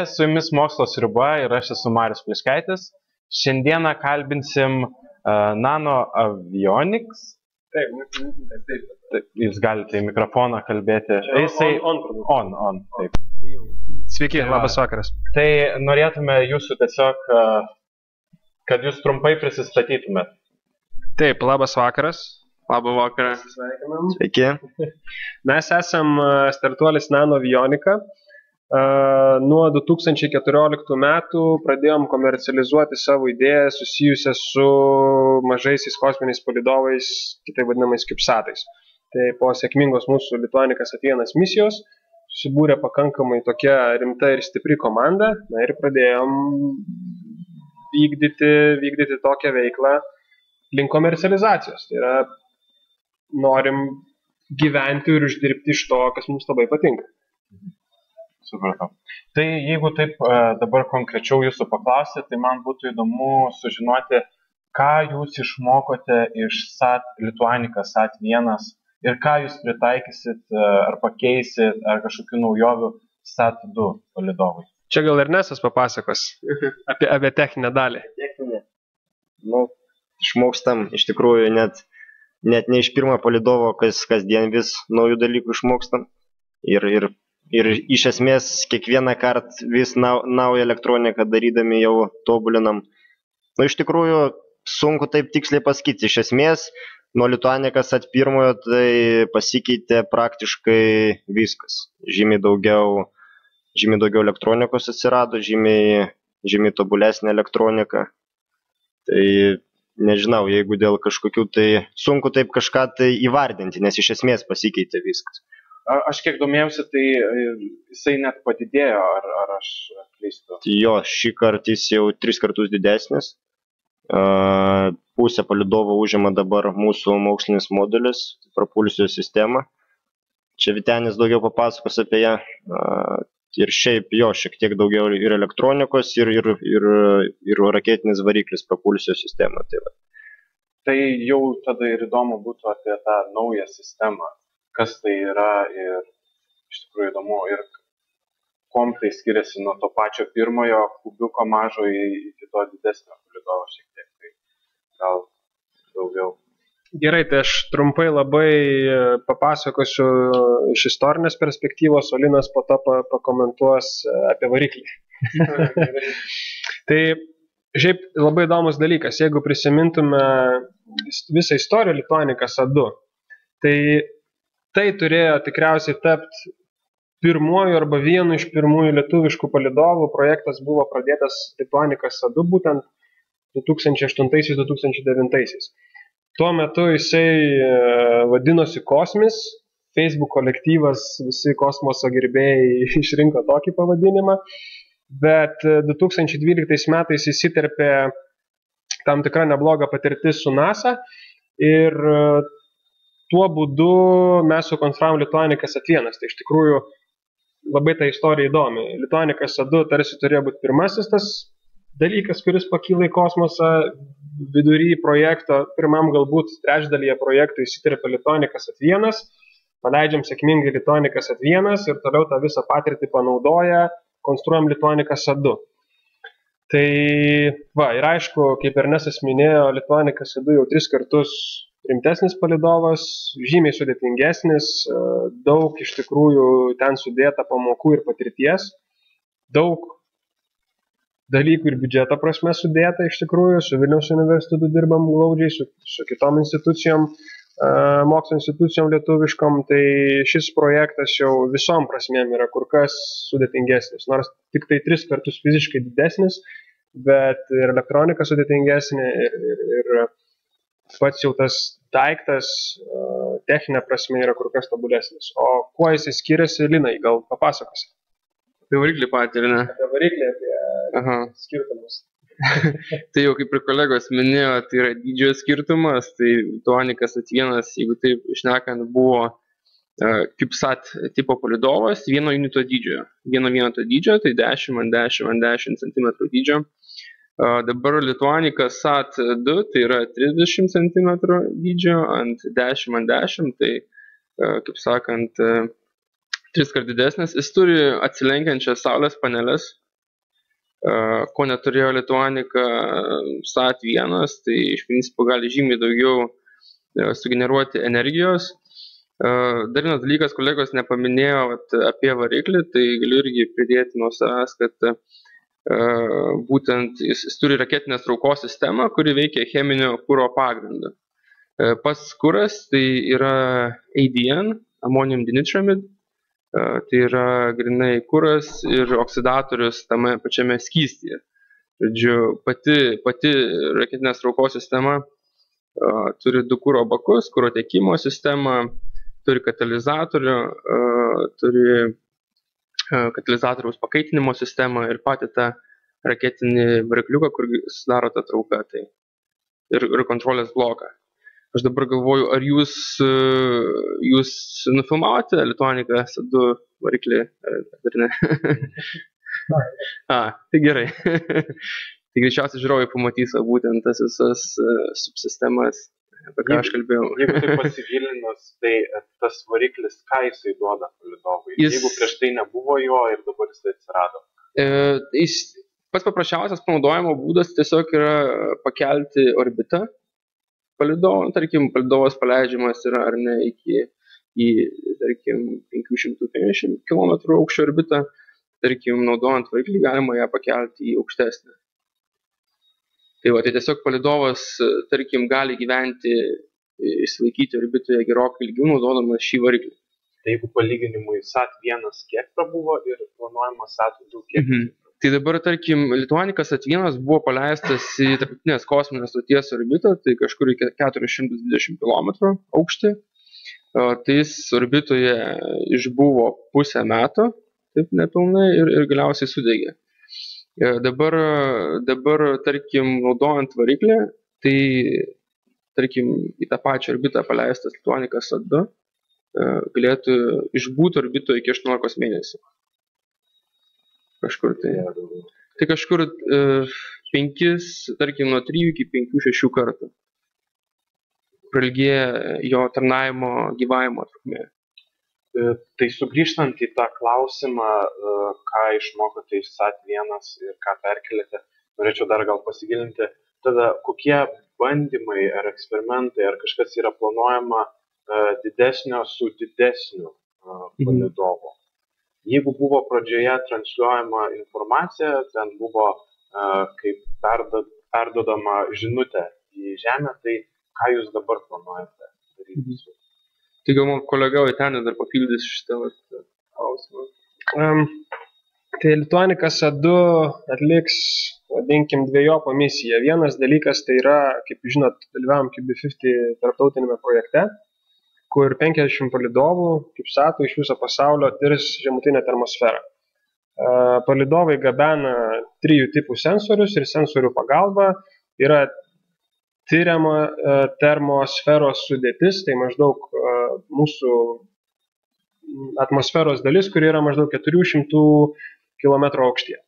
Su jumis Mokslo sriuba ir aš esu Marius Pliškaitis. Šiandieną kalbinsim Nano Avionics. Taip, jūs galite į mikrofoną kalbėti. On. Taip. Sveiki, labas vakaras. Tai norėtume jūsų tiesiog, kad jūs trumpai prisistatytumėt. Taip, labas vakaras. Labą vakarą. Sveiki. Mes esam startuolis Nano Avionica. Nuo 2014 metų pradėjom komercializuoti savo idėją susijusią su mažaisiais kosminiais palydovais, kitaip vadinamais CubeSatais. Tai po sėkmingos mūsų Lituanicas Atėnas misijos susibūrė pakankamai tokia rimta ir stipri komanda, ir pradėjom vykdyti tokią veiklą link komercializacijos. Tai yra, norim gyventi ir uždirbti iš to, kas mums labai patinka. Supratau. Tai jeigu taip dabar konkrečiau jūsų paklausyti, tai man būtų įdomu sužinoti, ką jūs išmokote iš Lituanicas SAT-1 ir ką jūs pritaikysit ar pakeisit ar kažkokių naujovių SAT-2 palydovui. Čia gal Ernestas papasakos apie techninę dalį. Techninė. Išmokstam iš tikrųjų net ne iš pirmo palydovo, kasdien vis naujų dalykų išmokstam. Ir iš esmės kiekvieną kartą vis naują elektroniką darydami jau tobulinam. Iš tikrųjų sunku taip tiksliai pasakyti. Iš esmės nuo Lituanicas SAT-1 tai pasikeitė praktiškai viskas. Žymiai daugiau elektronikos atsirado, žymiai tobulesnė elektronika. Tai nežinau, jeigu dėl kažkokių tai sunku taip kažką tai įvardinti, nes iš esmės pasikeitė viskas. Aš kiek domėjausi, tai jisai net padidėjo, ar aš klystu? Jo, šį kartą jis jau 3 kartus didesnis. Pusę palydovo užima dabar mūsų mokslinis modulis, propulsijos sistema. Čia Vytenis daugiau papasakos apie ją. Ir šiaip jo, šiek tiek daugiau ir elektronikos, ir raketinis variklis propulsijos sistema. Tai jau tada ir įdomu būtų apie tą naują sistemą. Kas tai yra ir iš tikrųjų įdomu ir kuom tai skiriasi nuo to pačio pirmojo kubiuko mažo iki to didesnio palydovo šiek tiek, tai gal daugiau. Gerai, tai aš trumpai labai papasakosiu iš istorinės perspektyvos, o Linas po to pakomentuos apie variklį. Tai šiaip labai įdomus dalykas, jeigu prisimintume visą istoriją Lituanicas A2, tai turėjo tikriausiai tapti pirmuoju arba vienu iš pirmųjų lietuviškų palydovų. Projektas buvo pradėtas Lituanicas A2 būtent 2008-2009. Tuo metu jisai vadinosi Kosmis, Facebook kolektyvas, visi kosmoso gerbėjai išrinko tokį pavadinimą, bet 2012 metais įsiterpė tam tikra nebloga patirtis su NASA ir tuo būdu mes sukonstravom Lituanicas A1. Tai iš tikrųjų labai ta istorija įdomi. Lituanicas A2 tarsi turėjo būti pirmasis tas dalykas, kuris pakyla į kosmosą. Vidury projekto, pirmam galbūt trečdalyje projektų įsiterpė Lituanicas A1. Paleidžiam sėkmingai Lituanicas A1 ir toliau tą visą patirtį panaudoja, konstruojam Lituanicas A2. Tai ir aišku, kaip Ernestas minėjo, Lituanicas A2 jau 3 kartus rimtesnis palydovas, žymiai sudėtingesnis, daug iš tikrųjų ten sudėta pamokų ir patirties, daug dalykų ir biudžeto prasme sudėta iš tikrųjų, su Vilniaus universitetu dirbam glaudžiai, su kitom institucijom, mokslo institucijom lietuviškom, tai šis projektas jau visom prasmėm yra kur kas sudėtingesnis, nors tik tai 3 kartus fiziškai didesnis, bet ir elektronika sudėtingesnė ir pats jau tas daiktas techninė prasme yra kur kas tobulesnis. O kuo jis skiriasi, Linai, gal papasakosi? Apie variklį patį, ar ne? Apie variklį, apie skirtumus. Tai jau kaip ir kolegos minėjo, tai yra dydžio skirtumas, tai Lituanicas A1, jeigu taip šnekant, buvo CubeSat tipo palydovas vieno unito dydžio. Vieno vieneto dydžio, tai 10x10x10 cm dydžio. Dabar Lituanicas SAT-2 tai yra 30 cm dydžio ant 10x10, tai kaip sakant, 3 kart didesnis. Jis turi atsilenkiančias saulės paneles, ko neturėjo Lituanica SAT1, tai iš principo gali žymiai daugiau sugeneruoti energijos. Dar vienas dalykas, kolegos nepaminėjo apie variklį, tai galiu irgi pridėti nuo savęs, kad būtent jis turi raketinės traukos sistemą, kuri veikia cheminio kuro pagrindu. Pats kuras tai yra ADN, ammonium dinitramid, tai yra grinai kuras ir oksidatorius tame pačiame skystyje. Žodžiu, pati raketinės traukos sistema turi 2 kuro bakus, kuro tiekimo sistemą, turi katalizatorių, turi katalizatoriaus pakaitinimo sistemą ir patį tą raketinį varikliuką, kur sudaro tą trauką, tai ir kontrolės bloką. Aš dabar galvoju, ar jūs nufilmavote Lituanica SAT2 variklį, ar ne? Tai gerai. Tai greičiausiai žiūrovai pamatys būtent tas visas subsistemas, apie ką aš kalbėjau. Jeigu tai pasigilinus, tai tas variklis, ką jisai duoda palydovui? Jeigu prieš tai nebuvo jo ir dabar jisai atsirado? Pats paprasčiausias panaudojimo būdas tiesiog yra pakelti orbitą palydovo. Tarkim, palydovas paleidžiamas yra ar ne į tarkim, 550 km aukščio orbitą. Tarkim, naudojant variklį galima ją pakelti į aukštesnę. Tai tiesiog palydovas, tarkim, gali gyventi, išsilaikyti orbitoje gerokai ilgiau naudodamas šį variklį. Tai jeigu palyginimui SAT1 kiek prabuvo ir planuojamas SAT2 kiek? Tai dabar, tarkim, Lituanica SAT1 buvo paleistas į tarptautinės kosminės stoties orbitą, tai kažkur iki 420 km aukštį. Tai jis orbitoje išbuvo pusę metų, taip nepilnai, ir galiausiai sudegė. Dabar, tarkim, naudojant variklį, tai, tarkim, į tą pačią orbitą paleistas Lituanica SAT2 galėtų išbūti orbitoje iki 18 mėnesių. Kažkur tai kažkur 5, tarkim, nuo 3 iki 5-6 kartų prailgėja jo tarnavimo gyvavimo trukmė. Tai sugrįžtant į tą klausimą, ką išmokote iš SAT1 ir ką perkelėte, norėčiau dar gal pasigilinti, tada kokie bandymai ar eksperimentai ar kažkas yra planuojama didesnio su didesniu palydovu. Jeigu buvo pradžioje transliuojama informacija, ten buvo kaip perdodama žinutė į Žemę, tai ką jūs dabar planuojate daryti? Tai gal man kolega Vytenis dar papildys šitą klausimą. Tai Lituanica SAT2 atliks, vadinkim, dvejopą misiją. Vienas dalykas tai yra, kaip žinot, dalyvavom QB50 tarptautinėme projekte, kur 50 palydovų, kaip SAT-ų, iš viso pasaulio tirs žemutinę termosferą. Palydovai gabena 3 tipų sensorius ir sensorių pagalba yra tyriama termosferos sudėtis, tai maždaug mūsų atmosferos dalis, kuri yra maždaug 400 km aukštyje.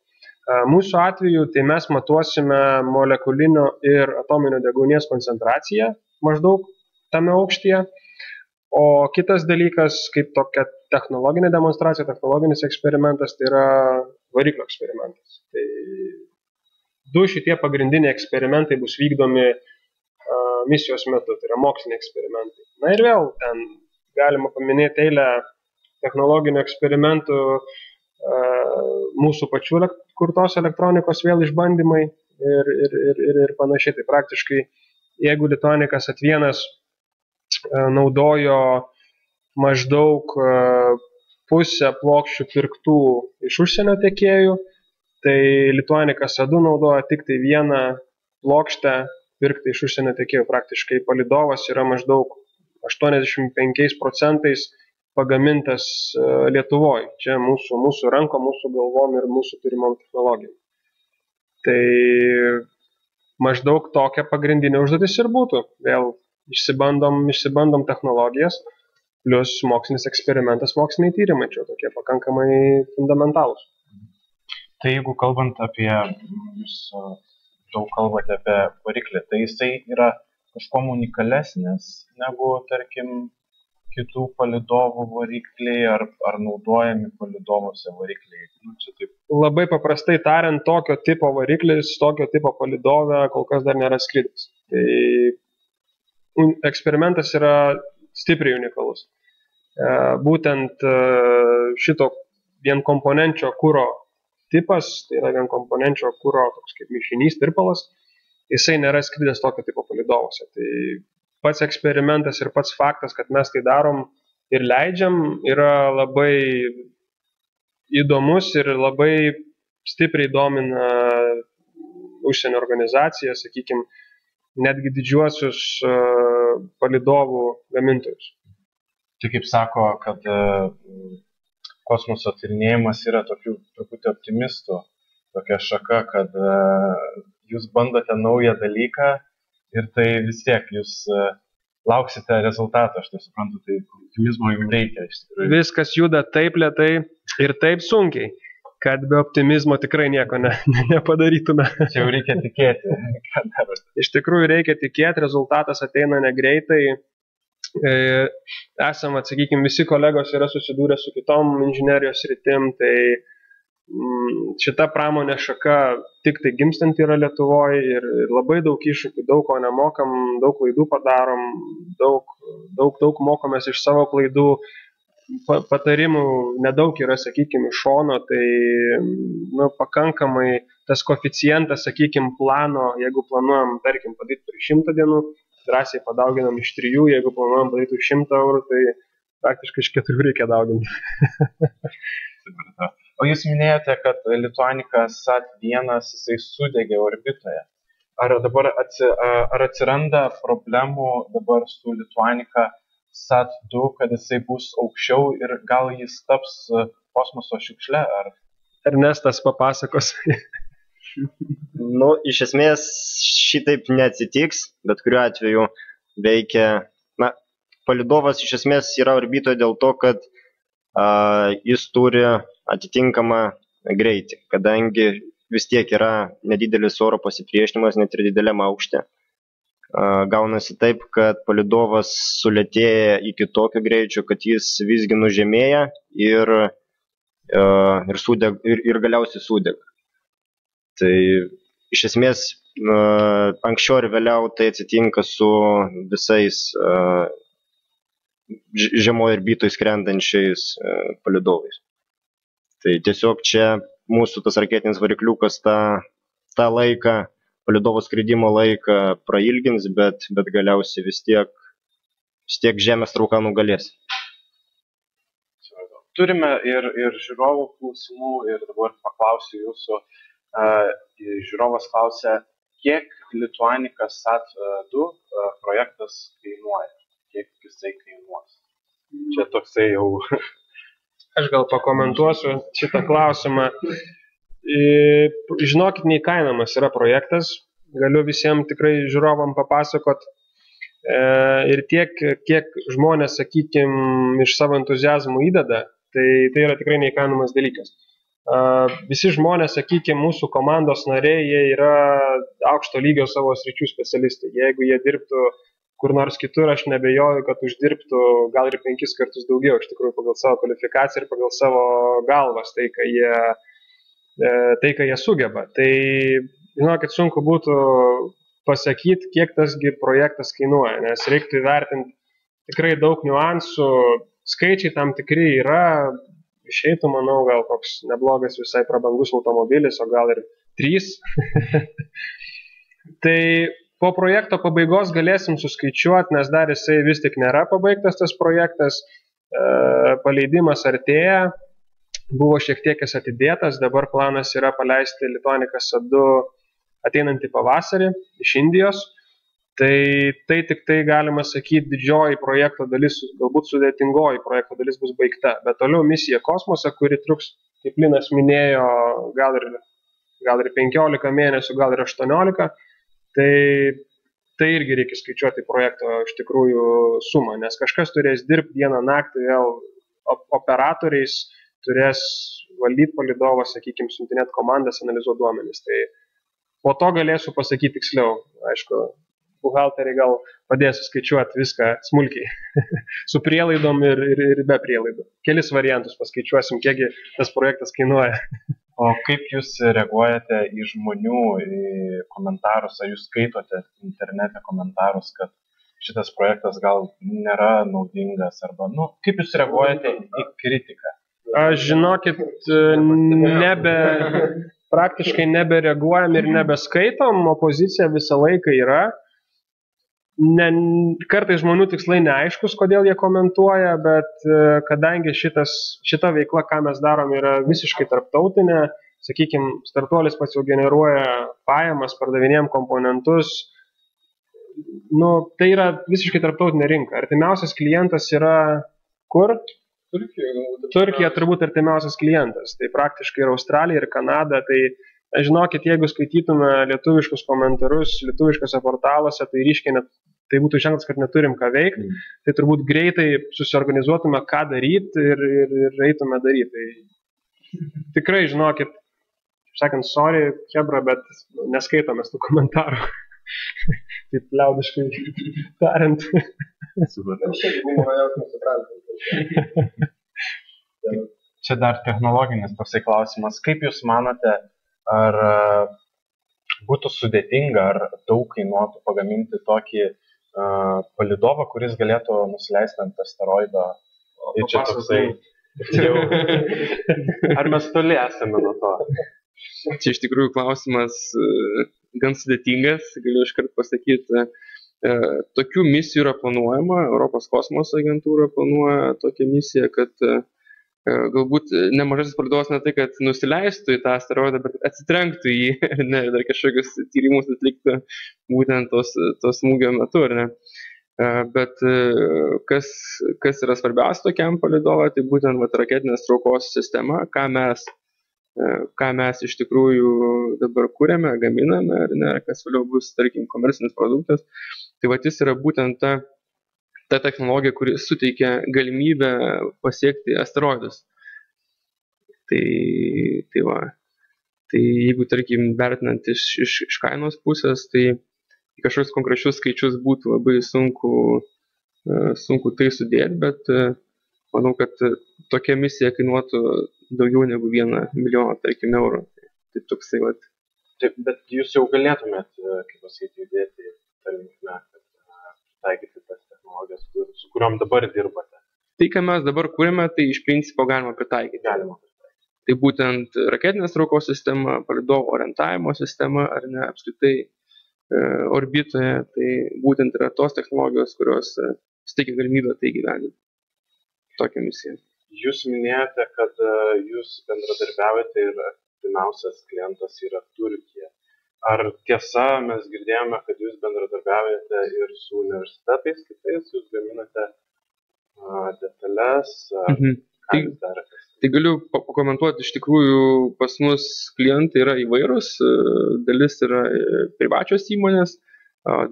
Mūsų atveju tai mes matuosime molekulinio ir atominio deguonies koncentraciją maždaug tame aukštyje. O kitas dalykas, kaip tokia technologinė demonstracija, technologinis eksperimentas, tai yra variklio eksperimentas. Tai 2 šitie pagrindiniai eksperimentai bus vykdomi misijos metu, tai yra moksliniai eksperimentai. Na ir vėl, ten galima paminėti eilę technologinių eksperimentų, mūsų pačių kurtos elektronikos vėl išbandymai ir panašiai. Tai praktiškai, jeigu Lituanica SAT1 naudojo maždaug pusę plokščių pirktų iš užsienio tiekėjų, tai Lituanica SAT2 naudoja tik tai 1 plokštę pirkti iš užsienio tiekėjų. Praktiškai palydovas yra maždaug 85% pagamintas Lietuvoje. Čia mūsų rankom, mūsų galvom ir mūsų turimom technologijom. Tai maždaug tokia pagrindinė užduotis ir būtų. Vėl išsibandom technologijas, plus mokslinis eksperimentas, moksliniai tyrimai, čia tokie pakankamai fundamentalūs. Tai jeigu kalbant apie, jūs daug kalbate apie variklį, tai jisai yra kažkuo unikalesnis negu, tarkim, kitų palydovų varikliai, ar naudojami palydovuose varikliai? Čia taip. Labai paprastai tariant, tokio tipo variklis, tokio tipo palydovė kol kas dar nėra skridęs. Tai eksperimentas yra stipriai unikalus. Būtent šito vienkomponenčio kuro tipas, tai yra vienkomponenčio kuro toks kaip mišinys, tirpalas, jisai nėra skridęs tokio tipo palydovose. Tai pats eksperimentas ir pats faktas, kad mes tai darom ir leidžiam, yra labai įdomus ir labai stipriai domina užsienio organizaciją, sakykime, netgi didžiuosius palydovų gamintojus. Tai kaip sako, kad kosmoso tyrinėjimas yra tokių truputį optimistų, tokia šaka, kad jūs bandote naują dalyką ir tai vis tiek jūs lauksite rezultatą, aš tai suprantu, tai optimizmo jums reikia. Viskas juda taip lėtai ir taip sunkiai, kad be optimizmo tikrai nieko nepadarytume. Čia jau reikia tikėti. Iš tikrųjų reikia tikėti, rezultatas ateina negreitai. Esam, sakykime, visi kolegos yra susidūrę su kitom inžinerijos sritim, tai šita pramonė šaka tik tai gimstant yra Lietuvoje ir labai daug iššūkių, daug ko nemokam, daug klaidų padarom, daug mokomės iš savo klaidų, patarimų nedaug yra, sakykime, iš šono, tai pakankamai tas koeficientas, sakykime, plano, jeigu planuojam, tarkim, padaryti per 100 dienų, drąsiai padauginam iš 3, jeigu planuojam padaryti už 100 eurų, tai praktiškai iš 4 reikia dauginti. O jūs minėjote, kad Lituanica SAT-1 jisai sudegė orbitoje. Ar atsiranda problemų dabar su Lituanica SAT-2, kad jisai bus aukščiau ir gal jis taps kosmoso šiukšle? Ernestas papasakos. Iš esmės šitaip neatsitiks, bet kuriuo atveju veikia. Palydovas iš esmės yra orbitoje dėl to, kad jis turi atitinkamą greitį, kadangi vis tiek yra nedidelis oro pasipriešinimas net ir dideliam aukšte. Gaunasi taip, kad palydovas sulėtėja iki tokio greičio, kad jis visgi nužemėja ir galiausiai sudega. Tai iš esmės anksčiau ir vėliau tai atsitinka su visais žemoje orbitoje skrendančiais palydovais. Tai tiesiog čia mūsų tas raketinis varikliukas tą laiką, palydovo skridimo laiką prailgins, bet galiausiai vis tiek Žemės trauka nugalės. Turime ir žiūrovų klausimų ir dabar paklausiu jūsų. Žiūrovas klausia, kiek Lituanica SAT-2 projektas kainuoja? Kiek jisai kainuos? Čia toksai jau... Aš gal pakomentuosiu šitą klausimą. Žinokit, neįkainamas yra projektas. Galiu visiems tikrai žiūrovam papasakot. Ir tiek, kiek žmonės, sakykime, iš savo entuziazmų įdeda, tai yra tikrai neįkainamas dalykas. Visi žmonės, sakykime, mūsų komandos nariai, jie yra aukšto lygio savo sričių specialistai. Jeigu jie dirbtų kur nors kitur, aš nebejoju, kad uždirbtų gal ir 5 kartus daugiau, iš tikrųjų, pagal savo kvalifikaciją ir pagal savo galvas, tai, ką jie sugeba. Tai, žinokit, sunku būtų pasakyti, kiek tasgi projektas kainuoja, nes reiktų įvertinti tikrai daug niuansų, skaičiai tam tikri yra, išeitų, manau, gal koks neblogas visai prabangus automobilis, o gal ir 3. Tai po projekto pabaigos galėsim suskaičiuoti, nes dar jisai vis tik nėra pabaigtas tas projektas, paleidimas artėja, buvo šiek tiek jis atidėtas, dabar planas yra paleisti Lituanica SAT-2 ateinantį pavasarį iš Indijos, tai tik tai galima sakyti didžioji projekto dalis, galbūt sudėtingoji projekto dalis bus baigta, bet toliau misija kosmose, kuri truks, kaip Linas minėjo, gal ir 15 mėnesių, gal ir 18, tai irgi reikia skaičiuoti projekto iš tikrųjų sumą, nes kažkas turės dirbti dieną naktį vėl operatoriais, turės valdyti palydovą, sakykime, siuntinėti komandas, analizuoti duomenis. Tai po to galėsiu pasakyti tiksliau. Aišku, buhalteriai gal padės skaičiuoti viską smulkiai, su prielaidom ir be prielaidų. Kelis variantus paskaičiuosim, kiekgi tas projektas kainuoja. O kaip jūs reaguojate į žmonių į komentarus, ar jūs skaitote internete komentarus, kad šitas projektas gal nėra naudingas, arba, kaip jūs reaguojate į kritiką? Aš žinokit, praktiškai nebereaguojam ir nebeskaitom, opozicija visą laiką yra. Kartais žmonių tikslai neaiškus, kodėl jie komentuoja, bet kadangi šita veikla, ką mes darom, yra visiškai tarptautinė, sakykime, startuolis pats jau generuoja pajamas, pardavinėjam komponentus, tai yra visiškai tarptautinė rinka. Artimiausias klientas yra kur? Turkija turbūt artimiausias klientas. Tai praktiškai ir Australija, ir Kanada. Tai žinokit, jeigu skaitytume lietuviškus komentarus lietuviškose portaluose, tai ryškiai tai būtų ženklas, kad neturim ką veikti. Tai turbūt greitai susiorganizuotume, ką daryti ir eitume daryti. Tai tikrai, žinokit, sakant, sorry, hebra, bet neskaitome tų komentarų. Taip liaudiškai tariant. Čia dar technologinis toksai klausimas. Kaip jūs manote, ar būtų sudėtinga, ar daug kainuotų pagaminti tokį palydovą, kuris galėtų nusileisti ant asteroido? Ir čia toksai... Ar mes toli esame nuo to? Čia iš tikrųjų klausimas gan sudėtingas, galiu iškart pasakyti. Tokių misijų yra planuojama, Europos kosmoso agentūra planuoja tokią misiją, kad galbūt nemažasis palydovas ne tai, kad nusileistų į tą asteroidą, bet atsitrenktų į jį, dar kažkokius tyrimus atliktų būtent tos smūgio metu, ar ne. Bet kas yra svarbiausia tokiam palydovui, tai būtent raketinės traukos sistema, ką mes iš tikrųjų dabar kūrėme, gaminame, ar ne, kas vėliau bus, tarkim, komercinis produktas. Tai jis yra būtent ta technologija, kuri suteikia galimybę pasiekti asteroidus. Tai jeigu, tarkim, vertinant iš kainos pusės, tai kažkokius konkrečius skaičius būtų labai sunku tai sudėti, bet manau, kad tokia misija kainuotų daugiau negu 1 milijoną, tarkim, eurų. Tai toksai, Taip, bet jūs jau galėtumėt, kaip pasakyti, judėti tą linkmę, kad taikyti tas technologijas, su kuriuom dabar dirbate. Tai, ką mes dabar kūrėme, tai iš principo galima pritaikyti. Tai būtent raketinės traukos sistema, palydovo orientavimo sistema, ar ne, apskritai orbitoje, tai būtent yra tos technologijos, kurios suteikia galimybę tai gyveninti. Tokią misiją. Jūs minėjote, kad jūs bendradarbiaujate ir artimiausias klientas yra Turkija. Ar tiesa, mes girdėjome, kad jūs bendradarbiaujate ir su universitetais kitais, jūs gaminate detalės, ką jūs darėte? Tai galiu pakomentuoti, iš tikrųjų pas mus klientai yra įvairūs, dalis yra privačios įmonės,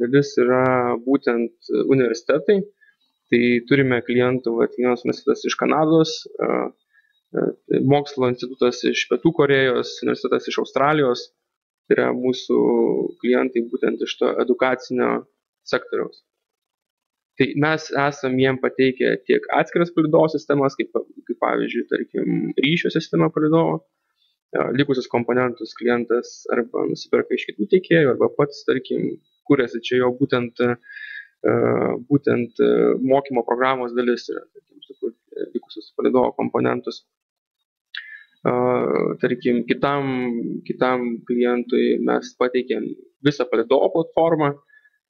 dalis yra būtent universitetai. Tai turime klientų, vienas universitetas iš Kanados, mokslo institutas iš Pietų Korėjos, universitetas iš Australijos. Tai yra mūsų klientai būtent iš to edukacinio sektoriaus. Tai mes esam jiem pateikę tiek atskiras palydovo sistemas, kaip pavyzdžiui, tarkim, ryšio sistema palydovo. Likusius komponentus klientas arba nusipirka iš kitų tiekėjų, arba pats, tarkim, kūrėsi čia jo būtent mokymo programos dalis yra, tarkim, likusius palydovo komponentus. Tarkim, kitam klientui mes pateikėm visą palydovo platformą,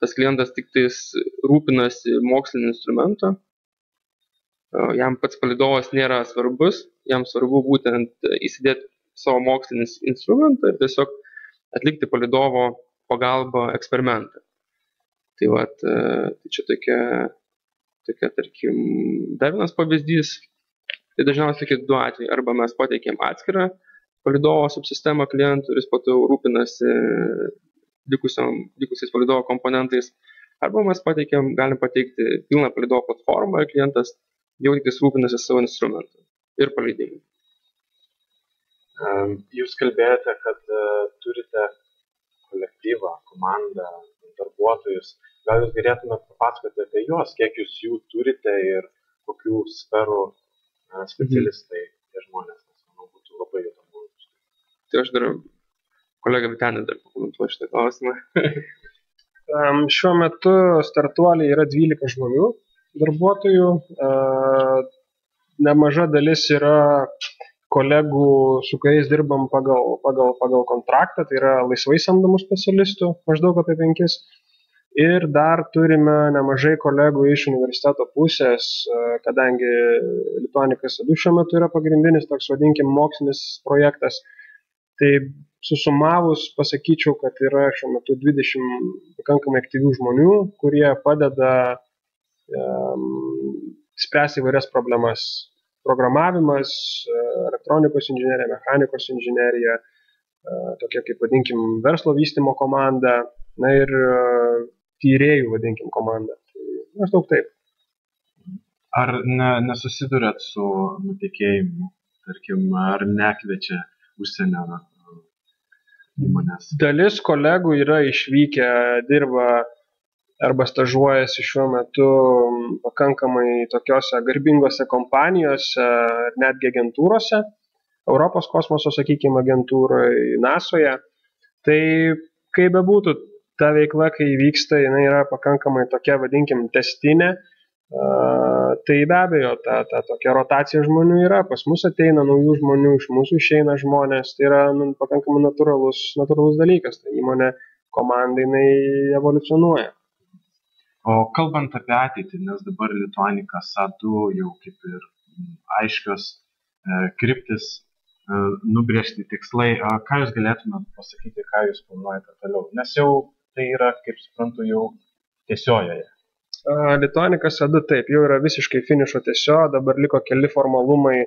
tas klientas tik tais rūpinasi mokslinį instrumentą, jam pats palydovas nėra svarbus, jam svarbu būtent įsidėti savo mokslinį instrumentą ir tiesiog atlikti palydovo pagalbą eksperimentą. Tai čia tokia, tarkim, dar vienas pavyzdys, tai dažniausiai tokie 2 atvejai, arba mes pateikėm atskirą palydovo subsistemą klientų ir jis po to rūpinasi likusiais palydovo komponentais, arba mes galim pateikti pilną palydovo platformą ir klientas jau tik rūpinasi savo instrumentą ir paleidimu. Jūs kalbėjote, kad turite kolektyvą, komandą, darbuotojus. gal jūs galėtumėte papasakoti apie juos, kiek jūs jų turite ir kokių sferų specialistai tie žmonės, nes manau būtų labai įdomu. Tai aš dar kolega Vytenis dar pakomentuoju šitą klausimą. Šiuo metu startuoliai yra 12 žmonių darbuotojų. Nemaža dalis yra kolegų, su kuriais dirbam pagal kontraktą, tai yra laisvai samdomų specialistų, maždaug apie 5. Ir dar turime nemažai kolegų iš universiteto pusės, kadangi Lituanicas EDU šiuo metu yra pagrindinis, toks vadinkim, mokslinis projektas. Tai susumavus pasakyčiau, kad yra šiuo metu 20 pakankamai aktyvių žmonių, kurie padeda spręsti įvairias problemas. Programavimas, elektronikos inžinerija, mechanikos inžinerija, tokia kaip vadinkim verslo vystymo komanda, na ir tyrėjų vadinkim komanda. Tai maždaug taip. Ar nesusidurėt su nutekėjimu, tarkim, ar nekviečia užsienio įmonės? Dalis kolegų yra išvykę, dirba arba stažuojasi šiuo metu pakankamai tokiose garbingose kompanijose ir netgi agentūrose, Europos kosmoso, sakykime, agentūroje, NASOje. Tai kaip bebūtų, ta veikla, kai vyksta, jinai yra pakankamai tokia, vadinkim, testinė. Tai be abejo, ta tokia rotacija žmonių yra, pas mus ateina naujų žmonių, iš mūsų išeina žmonės, tai yra pakankamai natūralus dalykas, tai įmonė komandai jinai evoliucionuoja. O kalbant apie ateitį, nes dabar Lituanicas EDU jau kaip ir aiškios kryptis, nubrėžti tikslai, ką jūs galėtumėte pasakyti, ką jūs planuojate toliau, nes jau tai yra, kaip suprantu, jau tiesiojoje. Lituanicas EDU taip, jau yra visiškai finišo tiesio, dabar liko keli formalumai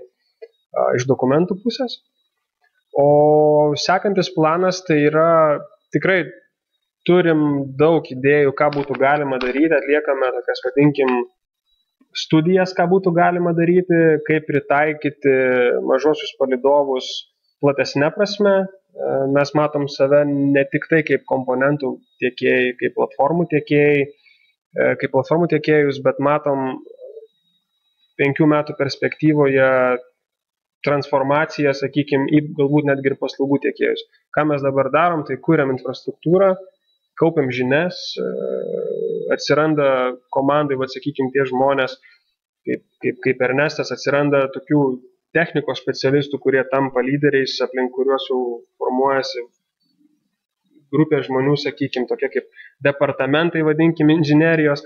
iš dokumentų pusės, o sekantis planas tai yra tikrai turim daug idėjų, ką būtų galima daryti, atliekame tokias, vadinkim, studijas, ką būtų galima daryti, kaip pritaikyti mažosius palydovus platesnė prasme. Mes matom save ne tik tai kaip komponentų tiekėjai, kaip platformų tiekėjus, bet matom 5 metų perspektyvoje transformaciją, sakykime, į galbūt netgi ir paslaugų tiekėjus. Ką mes dabar darom, tai kuriam infrastruktūrą, kaupiam žinias, atsiranda komandai, sakykime, tie žmonės, kaip Ernestas, atsiranda tokių technikos specialistų, kurie tampa lyderiais, aplink kuriuos jau formuojasi grupė žmonių, sakykime, tokie kaip departamentai, vadinkim, inžinerijos.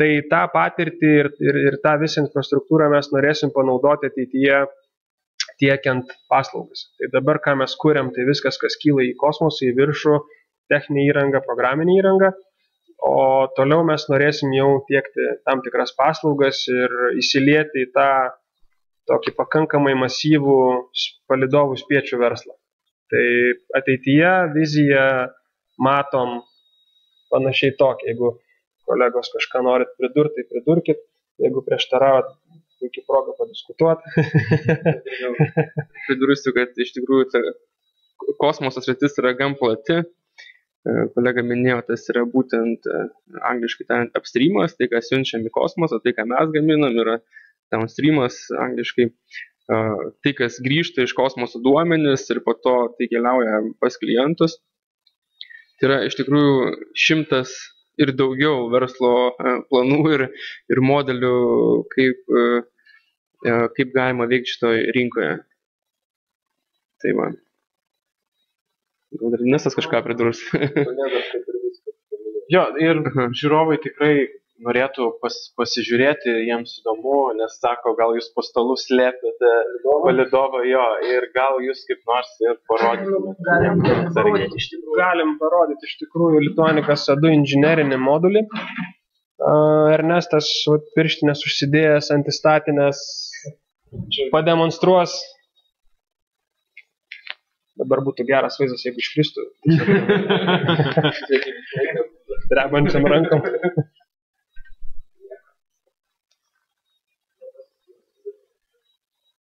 Tai tą patirtį ir tą visą infrastruktūrą mes norėsim panaudoti ateityje tiekiant paslaugas. Tai dabar, ką mes kuriam, tai viskas, kas kyla į kosmosą, į viršų, techninė įranga, programinė įranga, o toliau mes norėsim jau tiekti tam tikras paslaugas ir įsilieti į tą tokį pakankamai masyvų palydovų spiečių verslą. Tai ateityje viziją matom panašiai tokia. Jeigu kolegos kažką norit pridurti, tai pridurkit. Jeigu prieštaravot, puikiai proga padiskutuoti. Pridursiu, kad iš tikrųjų kosmoso sritis yra gan plati. Kolega minėjo, tas yra būtent angliškai tariant upstreamas, tai ką siunčiam į kosmosą, tai ką mes gaminam, yra downstreamas angliškai, tai kas grįžta iš kosmoso duomenis ir po to tai keliauja pas klientus. Tai yra iš tikrųjų 100 ir daugiau verslo planų ir modelių, kaip galima veikti šitoje rinkoje. Tai man. Gal dar Nesas kažką pridurs. Jo, ir žiūrovai tikrai norėtų pasižiūrėti, jiems įdomu, nes sako, gal jūs po stalu slėpėte palydovą, jo, ir gal jūs kaip nors ir parodytumėte. Galim parodyti iš tikrųjų Lituanicas EDU inžinerinį modulį. Ernestas pirštinės užsidėjęs antistatinės pademonstruos. Dabar būtų geras vaizdas, jeigu iškristų. Drebančiam rankom.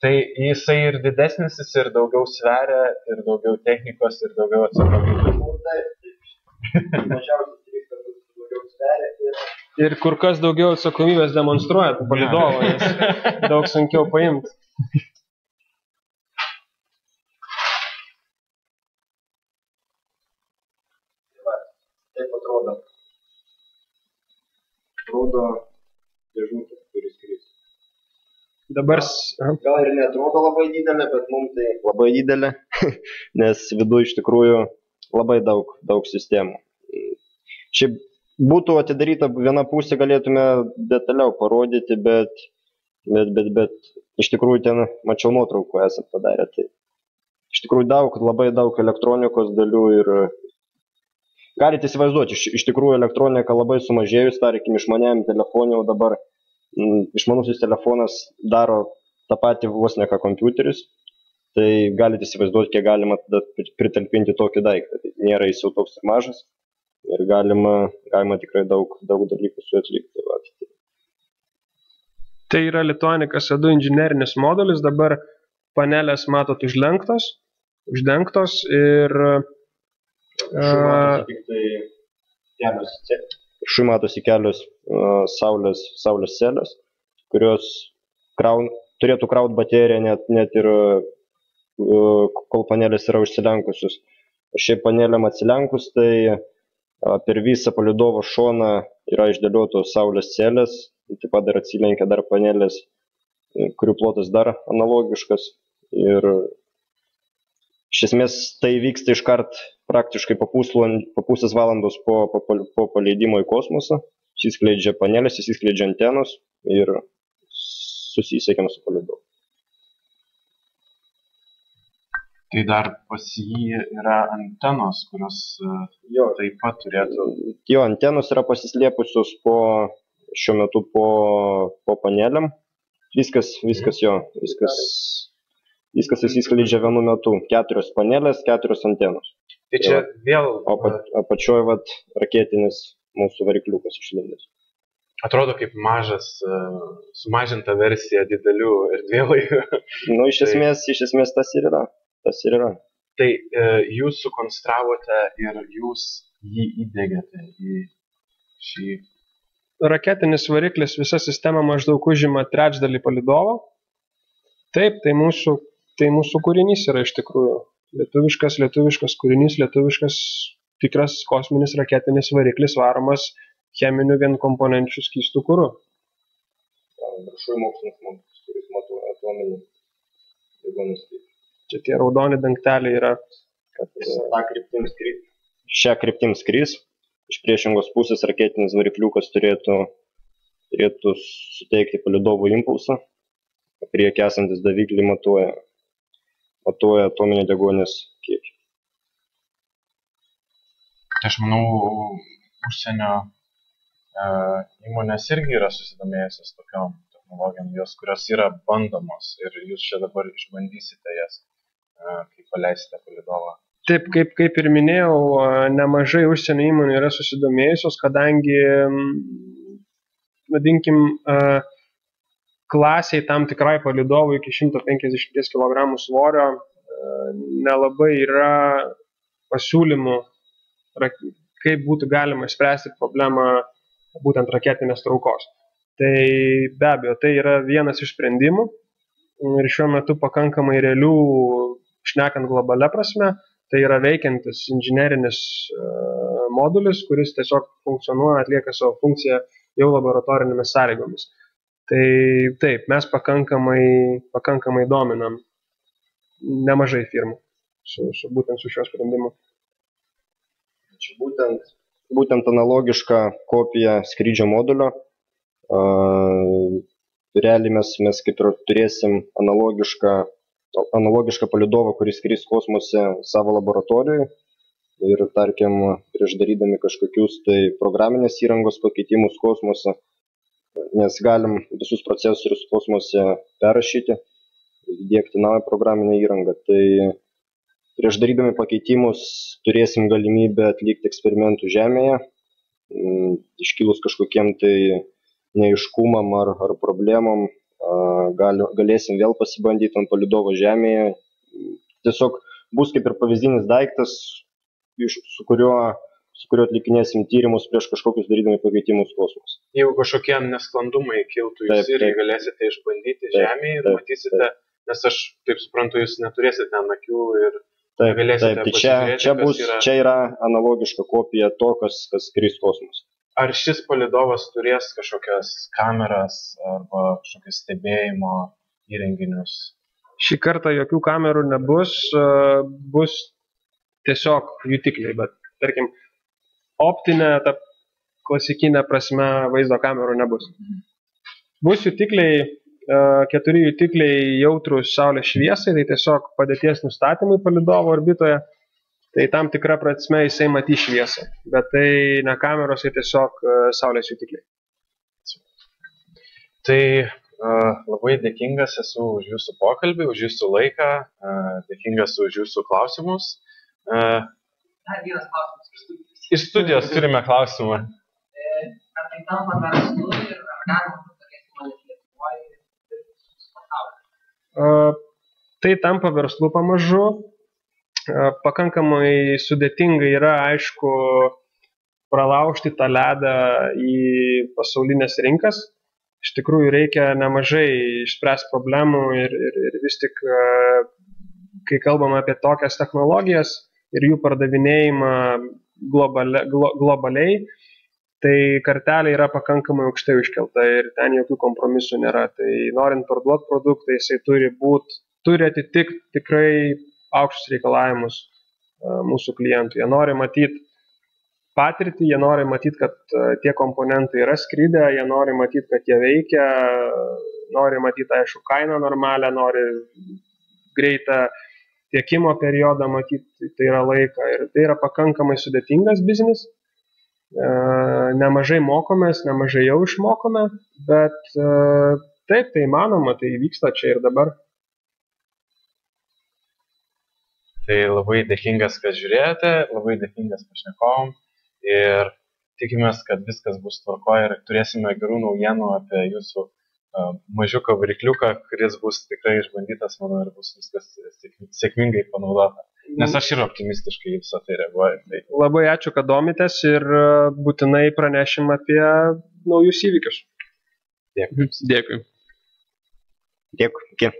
Tai jisai ir didesnis, jis ir daugiau sveria, ir daugiau technikos, ir daugiau atsakomybės. Mažiausiai 3 kartus daugiau sveria Ir kur kas daugiau atsakomybės demonstruoja palidovo, nes daug sunkiau paimti. Taip atrodo. Atrodo dėžutė, kuris skris. Dabar... Gal ir neatrodo labai didelė, bet mums tai labai didelė, nes viduje iš tikrųjų labai daug sistemų. Šiaip būtų atidaryta viena pusė, galėtume detaliau parodyti, bet iš tikrųjų ten mačiau nuotraukų esat padarę. Tai iš tikrųjų labai daug elektronikos dalių ir galite įsivaizduoti, iš tikrųjų elektronika labai sumažėjus, tarkim, išmaniajam telefonui, o dabar išmanusis telefonas daro tą patį vos ne ką kompiuteris, tai galite įsivaizduoti, kiek galima pritalpinti tokį daiktą. Tai nėra jis jau toks ir mažas. Ir galima tikrai daug dalykų su atlikti. Tai yra Lituanica SE2 inžinerinis modulis, dabar panelės matot uždengtos ir Šui matosi kelios saulės celės, kurios turėtų kraut bateriją net ir kol panelės yra užsilenkusius. Šiaip panelėm atsilenkus, tai per visą palidovo šoną yra išdėliotos saulės celės, taip pat dar atsilenkia dar panelės, kurių plotas dar analogiškas. Ir iš esmės tai vyksta iškart praktiškai po pusės valandos po paleidimo į kosmosą. Įsiskleidžia panelės, įsiskleidžia antenos ir susisiekiam su palidovu. Tai dar pas jį yra antenos, kurios taip pat turėtų... Jo, antenos yra pasislėpusios šiuo metu po panelėm. Viskas įsiskleidžia vienu metu. 4 panelės, 4 antenos. Tai čia vėl... O apačioje raketinis mūsų varikliukas išlindęs. Atrodo kaip mažas, sumažinta versija didelių erdvėlaivių. Nu, iš esmės tas ir yra. Tai jūs sukonstravote ir jūs jį įdėgėte į šį... Raketinis variklis visa sistema maždaug užima 1/3 palidovo. Taip, tai mūsų kūrinys yra iš tikrųjų. Lietuviškas kūrinys, lietuviškas tikras kosminis raketinis variklis varomas cheminiu vienkomponenčių skystų kuru. Viršuje mokslinis modulis, kuris matuoja atominį deguonies kiekį. Čia tie raudoni dangteliai yra, kad šią kryptim skris. Iš priešingos pusės raketinis varikliukas turėtų suteikti palidovų impulsą. Priekį esantis daviklį matuoja atominį deguonies kiekį. Aš manau, užsienio įmonės irgi yra susidomėjusios tokiom technologijom, kurios yra bandomos ir jūs čia dabar išbandysite jas, kai paleisite palidovą. Taip, kaip ir minėjau, nemažai užsienio įmonių yra susidomėjusios, kadangi, vadinkim, klasiai tam tikrai palidovui iki 150 kg svorio nelabai yra pasiūlymų, kaip būtų galima išspręsti problemą būtent raketinės traukos. Tai be abejo, tai yra vienas iš sprendimų ir šiuo metu pakankamai realių, šnekant globalia prasme, tai yra veikiantis inžinerinis modulis, kuris tiesiog funkcionuoja, atlieka savo funkciją jau laboratorinėmis sąlygomis. Tai taip, mes pakankamai dominam nemažai firmų būtent su šiuo sprendimu. Čia būtent analogiška kopija skrydžio modulio. Realiai mes kaip ir turėsim analogišką palidovą, kuris skris kosmose savo laboratorijoje ir, tarkim, prieš darydami kažkokius tai programinės įrangos pakeitimus kosmose, nes galim visus procesorius kosmose perrašyti, įdiegti naują programinę įrangą. Tai prieš darydami pakeitimus turėsim galimybę atlikti eksperimentų Žemėje, iškilus kažkokiem tai neaiškumam ar problemom, galėsim vėl pasibandyti ant palidovo Žemėje. Tiesiog bus kaip ir pavyzdinis daiktas, su su kuriuo atlikinėsim tyrimus prieš kažkokius darydami pakeitimus kosmose. Jeigu kažkokie nesklandumai kiltų, jūs irgi galėsite išbandyti Žemėje ir matysite, nes aš taip suprantu, jūs neturėsite ten akių ir galėsite pasižiūrėti, čia yra analogiška kopija to, kas skris kosmose. Ar šis palydovas turės kažkokias kameras arba kažkokias stebėjimo įrenginius? Šį kartą jokių kamerų nebus, bus tiesiog jutikliai, bet tarkim, optinė, ta klasikinė prasme vaizdo kamerų nebus. Bus jutikliai, 4 jutikliai jautrus saulės šviesai, tai tiesiog padėties nustatymui palydovo orbitoje, tai tam tikra prasme jisai matys šviesą, bet tai ne kameros, tai tiesiog saulės jutikliai. Tai labai dėkingas esu už jūsų pokalbį, už jūsų laiką, dėkingas už jūsų klausimus. Dar vienas klausimas iš studijos. Iš studijos turime klausimą. Ar tai tampa verslu ir ar galima tokias įmonės Lietuvoje ir pasaulyje? Tai tampa verslu pamažu. Pakankamai sudėtinga yra, aišku, pralaužti tą ledą į pasaulinės rinkas. Iš tikrųjų reikia nemažai išspręsti problemų ir vis tik, kai kalbame apie tokias technologijas ir jų pardavinėjimą globaliai, tai kartelė yra pakankamai aukštai iškelta ir ten jokių kompromisų nėra. Tai norint parduoti produktą, jisai turi atitikti tikrai aukštus reikalavimus mūsų klientų. Jie nori matyti patirtį, jie nori matyti, kad tie komponentai yra skridę, jie nori matyti, kad jie veikia, nori matyti, aišku, kainą normalią, nori greitą tiekimo periodą matyti, tai yra laiką. Ir tai yra pakankamai sudėtingas biznis. Nemažai mokomės, nemažai jau išmokome, bet taip, tai įmanoma, tai vyksta čia ir dabar. Tai labai dėkingas, kad žiūrėjote, labai dėkingas pašnekovom. Ir tikimės, kad viskas bus tvarkoje ir turėsime gerų naujienų apie jūsų mažiuką varikliuką, kuris bus tikrai išbandytas, manau, ir bus viskas sėkmingai panaudota. Nes aš ir optimistiškai visą tai reaguoju. Tai... Labai ačiū, kad domitės ir būtinai pranešim apie naujus įvykius. Dėkui. Dėkui. Dėkui. Iki.